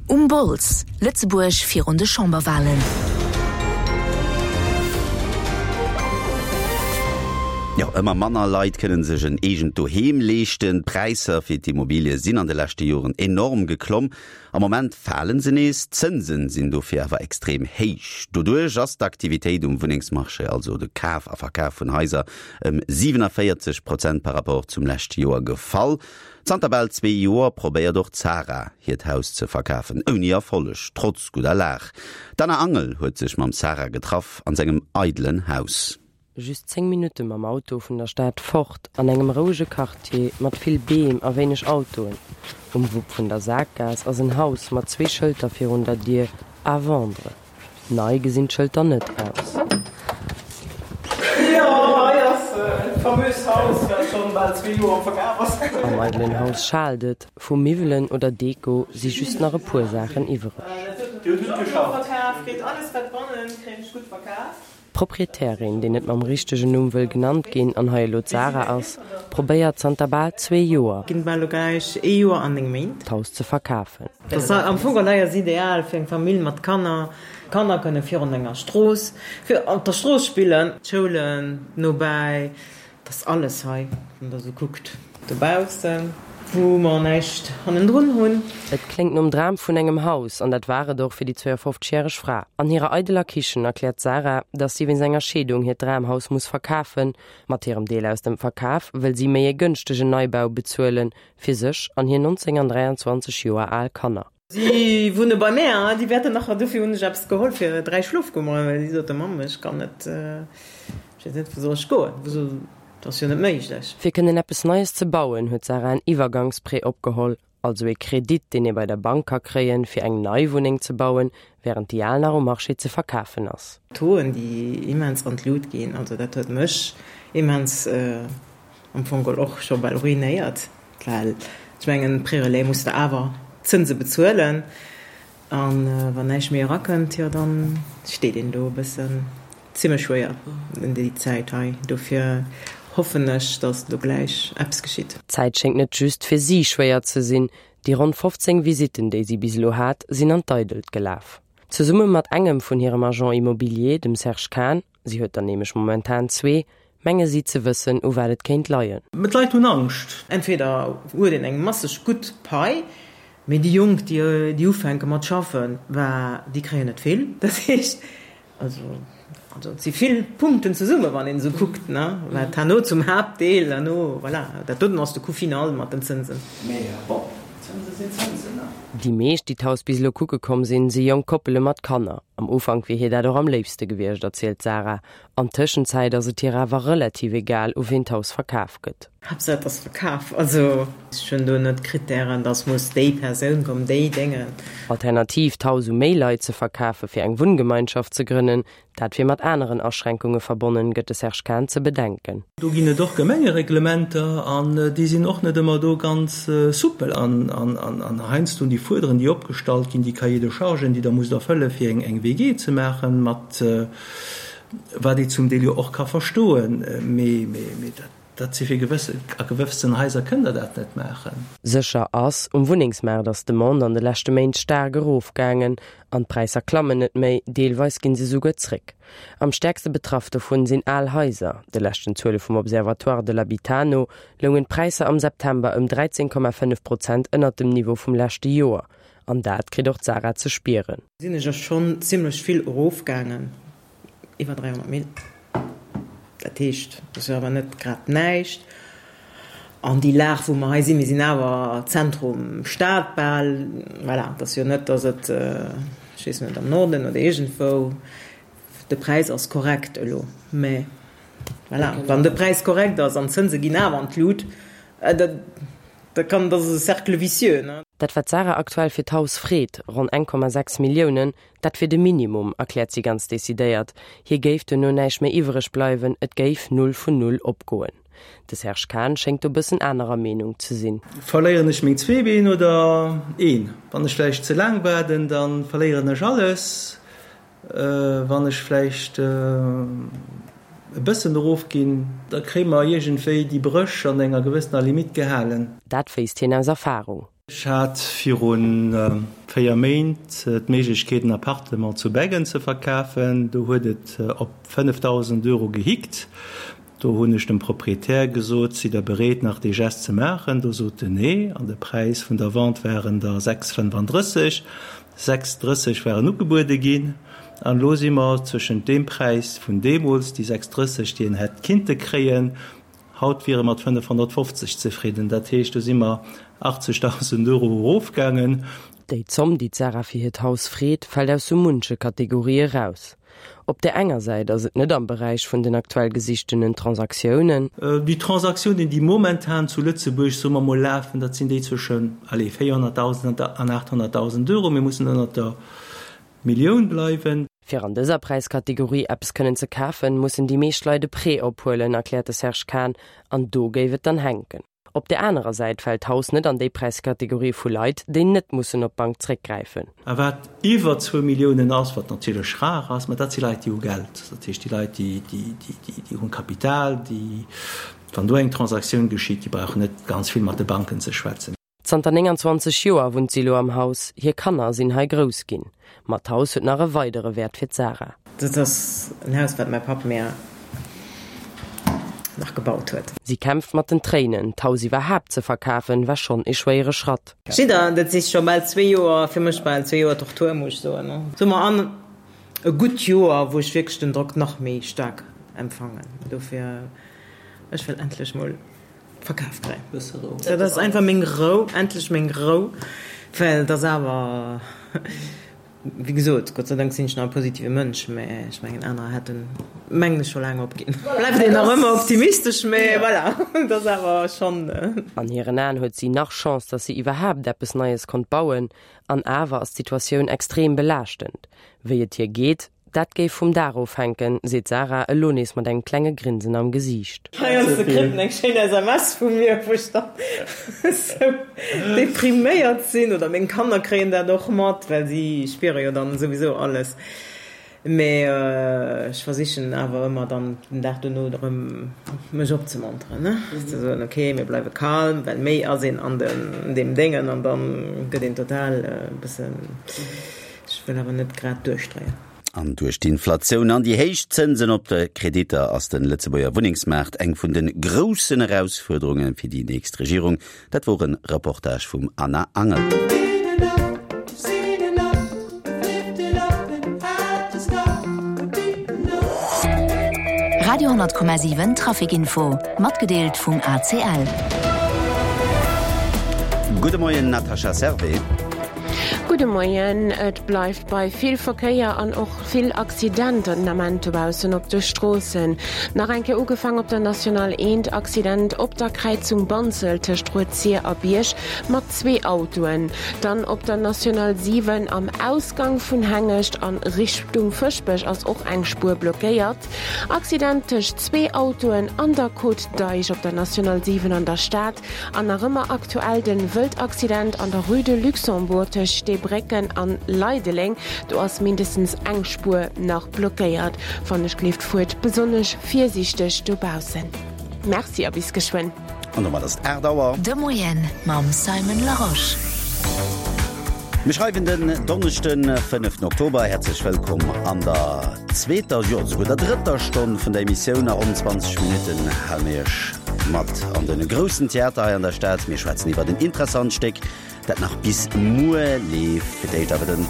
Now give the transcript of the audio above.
Um Bols, Lëtzebuerg virun de Chamberwalen. Jo, ëmmer manner Leit kënnen sech en eegent Doheem leeschten. D'Präisser fir d'Immobilie sinn an de leschte Joren enorm geklomm. Am Moment falen se nees, d'Zënsen sinn dofir awer extrem héich. Doduerch ass d'Aktivitéit um Wunnengsmarché, also de Kaf a Verkaf vun Haiser, ëm 47 Prozent par Rapport zum leschte Joer gefall. Zanter bal zwee Joer probéiert och d'Sarah hiert Haus ze verkafen, ouni Erfolleg, trotz gudder Lag. D'Anna Angel huet sech mam Sarah getraff an sengem eidelen Haus. Just 10 Minutte mam Auto vun der Stad fort, an engem rouege Quartier mat vill Beem a wéineg Autoen. Um Wupp vun der Sakgaass ass en Haus mat zwee Schëlter virun der Dier, À vendre. Nei gesinn d'Schëlter net aus. Jo, hei ass et famöst Haus, wat schonn bal zwee Joer am Verkaf ass. Am eidelen Haus schaalt et, vu Miwwelen oder Deko si just nach e puer Saachen iwwereg. D'Proprietärin, déi net mam richtegen Numm wëll genannt ginn an hei elo d'Sarah ass, probéiert zanter bal zwee Joer, Ginn bal elo gläich ee Joer an 9 Méint. d'Haus ze verkafen. Dat ass am Fong hei ass ideal fir eng Famill mat Kanner. D'Kanner kënne virun enger Strooss, fir op der Strooss spillen. D'Schoulen nobäi, dat ass alles hei, wann der esou kuckt. Dobaussen, wou mer näischt hannendrun hunn. Et kléngt nom Dram vun engem Haus, an dat war et och fir déi 52 järeg Fra. An hirer eideler Kichen erkläert d'Sarah, dass si wéinst enger Scheedung hiert Dramhaus muss verkafen. Mat hirem Deel aus dem Verkaf wëll si méi e gënschtegen Neibau bezuelen, fir sech an hir 19 an 23 Joer al Kanner. Si wunne bei mär, déi wäerten nach, dofir hunn ech eppes geholl fir 3 Schlofkummeren, well si sote, Mamm, ech kann net, ech weess net, wou soll ech goen, wou soll, dat ass jo net méiglech. Fir kënnen eppes Neies ze bauen, huet d'Sarah en Iwwergangsprêt opgeholl, also ee Kredit, deen ee bei der Bank ka kréien, fir eng nei Wunneng ze bauen, wärend déi al nach um Marché ze verkafen ass. D'Tauxen, déi immens an d'Lut ginn, also dat huet mech immens am Fong geholl och scho bal ruinéiert, well ech mengen, Pré-relais muss de awer d'Zënse bezuelen a wann näischt méi erakënnt, jo da steet een do e bëssen zimlech schwéier un déi Zäit hei. Dofir hoffen ech, datt elo gläich eppes geschitt. D'Zäit schéngt net just fir si schwéier ze sinn. Déi ronn 15 Visitten, déi si bis elo hat, sinn an d'Eidelt gelaf. Zesumme mat engem vun hirem Agent immobilier, dem Serge Kahn, Si huet der nämlech momentan zwee, menge si ze wëssen, u wat et kéint leien. Mä d'Leit hunn Angscht. Entweder huet een eng masseg gutt Pai, mee déi Jonk, déi ufänke mat schaffen, bah, déi kréien net vill. Dat heescht, also, also et si vill Punkten zesumme wann een esou kuckt, ne, wat herno zum Haaptdeel herno, voilà, dat doten ass de Coût final mat den Zënsen. Mee bon, Zënse sinn Zënsen, ne? Déi meescht, déi d'Haus bis elo kucke komm sinn, si jonk Koppele mat Kanner. Am Ufank wier hir dat och am léifste gewiescht, erzielt d'Sarah. An Tëschenzäit ass et hir awer relativ egal, u ween d'Haus verkaf gëtt. Haaptsaach et ass verkaf. Also ech hunn do net Krittären, dass muss déi Persoun kommen, déi Déngen. Alternativ, d'Haus u méi Leit ze verkafe fir eng Wunngemeinschaft ze grënnen, Dat wier mat aneren Aschränkunge verbonnen, gëtt de Serge Kahn ze bedenken. Do ginn et och Gemengereglementer an déi sinn och net ëmmer do ganz soupel. An heiansdo déi Fuerderen, déi opgestallt ginn, déi Cahiers de chargen, déi Der musst erfëlle fir eng WG ze maachen, mat wat ee zum Deel jo och ka verstoen, mee dat. Dat si fir gewësse, a gewëfsten Haiser kënnt Der dat net maachen. Sécher ass, um Wunnengsmaart ass d'Demande an de leschte Méint staark erofgaangen an d'Präisser klammen net méi, deelweis ginn se souguer zréck. Am stäerkste betraff dovun sinn al Haiser. De leschten Zuele vum Observatoire de l'habitat no loungen d'Präisser am September ëm 13,5 Prozent ënnert dem Niveau vum leschte Joer. An dat kritt och d'Sarah ze spieren. Sinn ech ass schonn zimmlech vill erofgaangen. Iwwer 300 Mille. Dat heescht, dat ass jo awer net grad näischt. An déi Lag, wou mer hei sinn, mir sinn awer Zentrum Stad bal, voilà, et ass jo net, datt et, ech weess net, am Norden oder iergendwou, de Präis ass korrekt elo, mä voilà, wann de Präis korrekt ass an d'Zënse ginn awer an d'Lut, da da kann, dat ass e Cercle vicieux, ne. Dat wat d'Sarah aktuell fir d'Haus freet, ronn 1,6 Milliounen, Dat wier de Minimum, erkläert si ganz decidéiert. Hir géif duerno näischt méi iwwereg bleiwen, et géif null vun null opgoen. De Serge Kahn schéngt do bëssen anerer Meenung ze sinn. Verléieren ech meng zwee Been oder een? Wann ech vläicht ze laang waarden, da verléieren ech alles. Wann ech vläicht e bëssen erofginn, da kréie mer iergendwéi déi Bréch an enger gewëssener Limitt gehalen. Dat wéisst hien aus Erfarung. Ech hat viru 4 Méint d'Méiglechkeet en Appartement zu Beggen ze verkafen. Do huet et op 5.000 Euro gehickt. Do hunn ech dem Proprietär gesot, Sidd Der bereet nach dee Gest ze maachen? Do sot en nee. An de Präis vun der Vente waren der 6,35. 6,30 waren ugebuede ginn. An elo si mer zwëschent deem Präis vun deemools, déi 6,30 déi en hätt kinnte kréien, Haut wiere mat 550 zefridden, dat heescht, do si mer 80.000 Euro erofgaangen. Déi Zomm, déi d'Sarah fir hiert Haus freet, fält aus sou munche Kategorie eraus. Op där enger Säit ass et net am Beräich vun den aktuell gesichtenen Transaktiounen. Déi Transaktiounen, déi momentan zu Lëtzebuerg, soe mer mol, lafen, dat sinn déi zwëschen, allez, 400.000 an 800.000 Euro. Mir mussen ënnert der Millioun bleiwen. Fir an dëser Präiskategorie eppes kënnen ze kafen, mussen déi meescht Leit e Prêt ophuelen, erkläert de Serge Kahn. An do géif et dann hänken. Op där anerer Säit fält d'Haus net an déi Präiskategorie vu Leit, déi net mussen op d'Bank zréckgräifen. A wat iwwer zwou Milliounen ass, wat natierlech rar ass, mä dat si Leit, déi hu Geld. Dat heescht, déi Leit, déi hunn Kapital, déi, wann do eng Transaktioun geschitt, déi brauchen net ganz vill mat de Banken ze schwätzen. Zanter 29 Joer wunnt si elo am Haus, hir Kanner sinn hei grouss ginn. Ma d'Haus huet nach e weidere Wäert fir d'Sarah. Dat ass en Haus, wat mäi Papp mär nach gebaut huet. Si kämpft mat den Tréinen, d'Haus iwwerhaapt ze verkafen, war schonn ee schwéiere Schratt. Jidder, dat si scho bal zwee Joer, fir mech bal zwee Joer Tortur, muss ech soen. Soe mer an e gutt Joer, wou ech wierklech den Drock nach méi staark empfangen. Dofir, ech wëll endlech mol Verkaf kréien. Dat ass einfach meng Rou, endlech meng Rou, well et ass awer, wéi gesot, Gott sei Dank sinn ech nach e positive Mënsch, mä ech mengen anerer hätten, mengen ech, scho laang opginn. Bleift een nach ëmmer optimistesch, mä voilà, et ass awer schonn. An hiren Aen huet si nach Chance, datt si iwwerhaapt eppes Neies konnt bauen. An awer ass d'Situatioun extrem belaaschtend. Wéi et hir geet, Dat géif vum Dag ofhänken, seet d'Sarah elo nees mat engem klenge Grinsen am Gesiicht. Heiansdo kritt en eng schéin SMS vu mir, wou ech dann esou depriméiert sinn, oder meng Kanner kréien dat och mat, well si spiere jo dann souwisou alles. Mee ech versichen awer ëmmer dann den Dag dono erëm mech opzemonteren, ne, ze soen, ok, mir bleiwe calm, well méi ass een an deem Déngen an dann gëtt een total e bëssen. Ech wëll awer net grad duerchdréien. An duerch d'Inflatioun an déi héich Zënsen op de Kreditter ass de Lëtzebuerger Wunnengsmaart eng vun de groussen Erausfuerderunge fir déi nächst Regierung. Dat wor e Reportage vum Anna Angel. Radio 10,7 Traficinfo, matgedeelt vum ACL. Gudde Moien Natascha Servais. Gudde Moien. Et bleift bei vill Verkéier an och vill Accidenter den Ament dobaussen op de Stroossen. Nach eng Kéier ugefaang op der National 1, Accident op der Kräizung Banzelt tëscht Rued-Sir a Bierg mat zwee Autoen. Dann op der National 7 am Ausgang vun Hengescht a Richtung Fëschbech ass och eng Spuer blockéiert. Accident tëscht zwee Autoen an der Côte d'Eich op der National 7 an der Stad. An nach ëmmer aktuell den Wëldaccident an der Rue de Luxembourg tëscht Steebrécken an Leideleng. Do ass mindestens eng Spuer nach blockéiert. Wann ech gleeft fuert besonnesch virsiichteg dobaussen. Merci a bis geschwënn. An domat ass et 8 Auer. De Moien mam Simon Larosche. Mir schreiwen den Donneschden, 5 Oktober. Häerzlech wëllkomm an der zweeter, jo esouguer der drëtter Stonn vun der Emissioun. A ronn 20 Minutten hale mir Iech mat an de groussen Theater hei an der Stad. Mir schwätzen iwwert en interessant Stéck, dat nach bis muer leeft. Fir d'éischt awer den.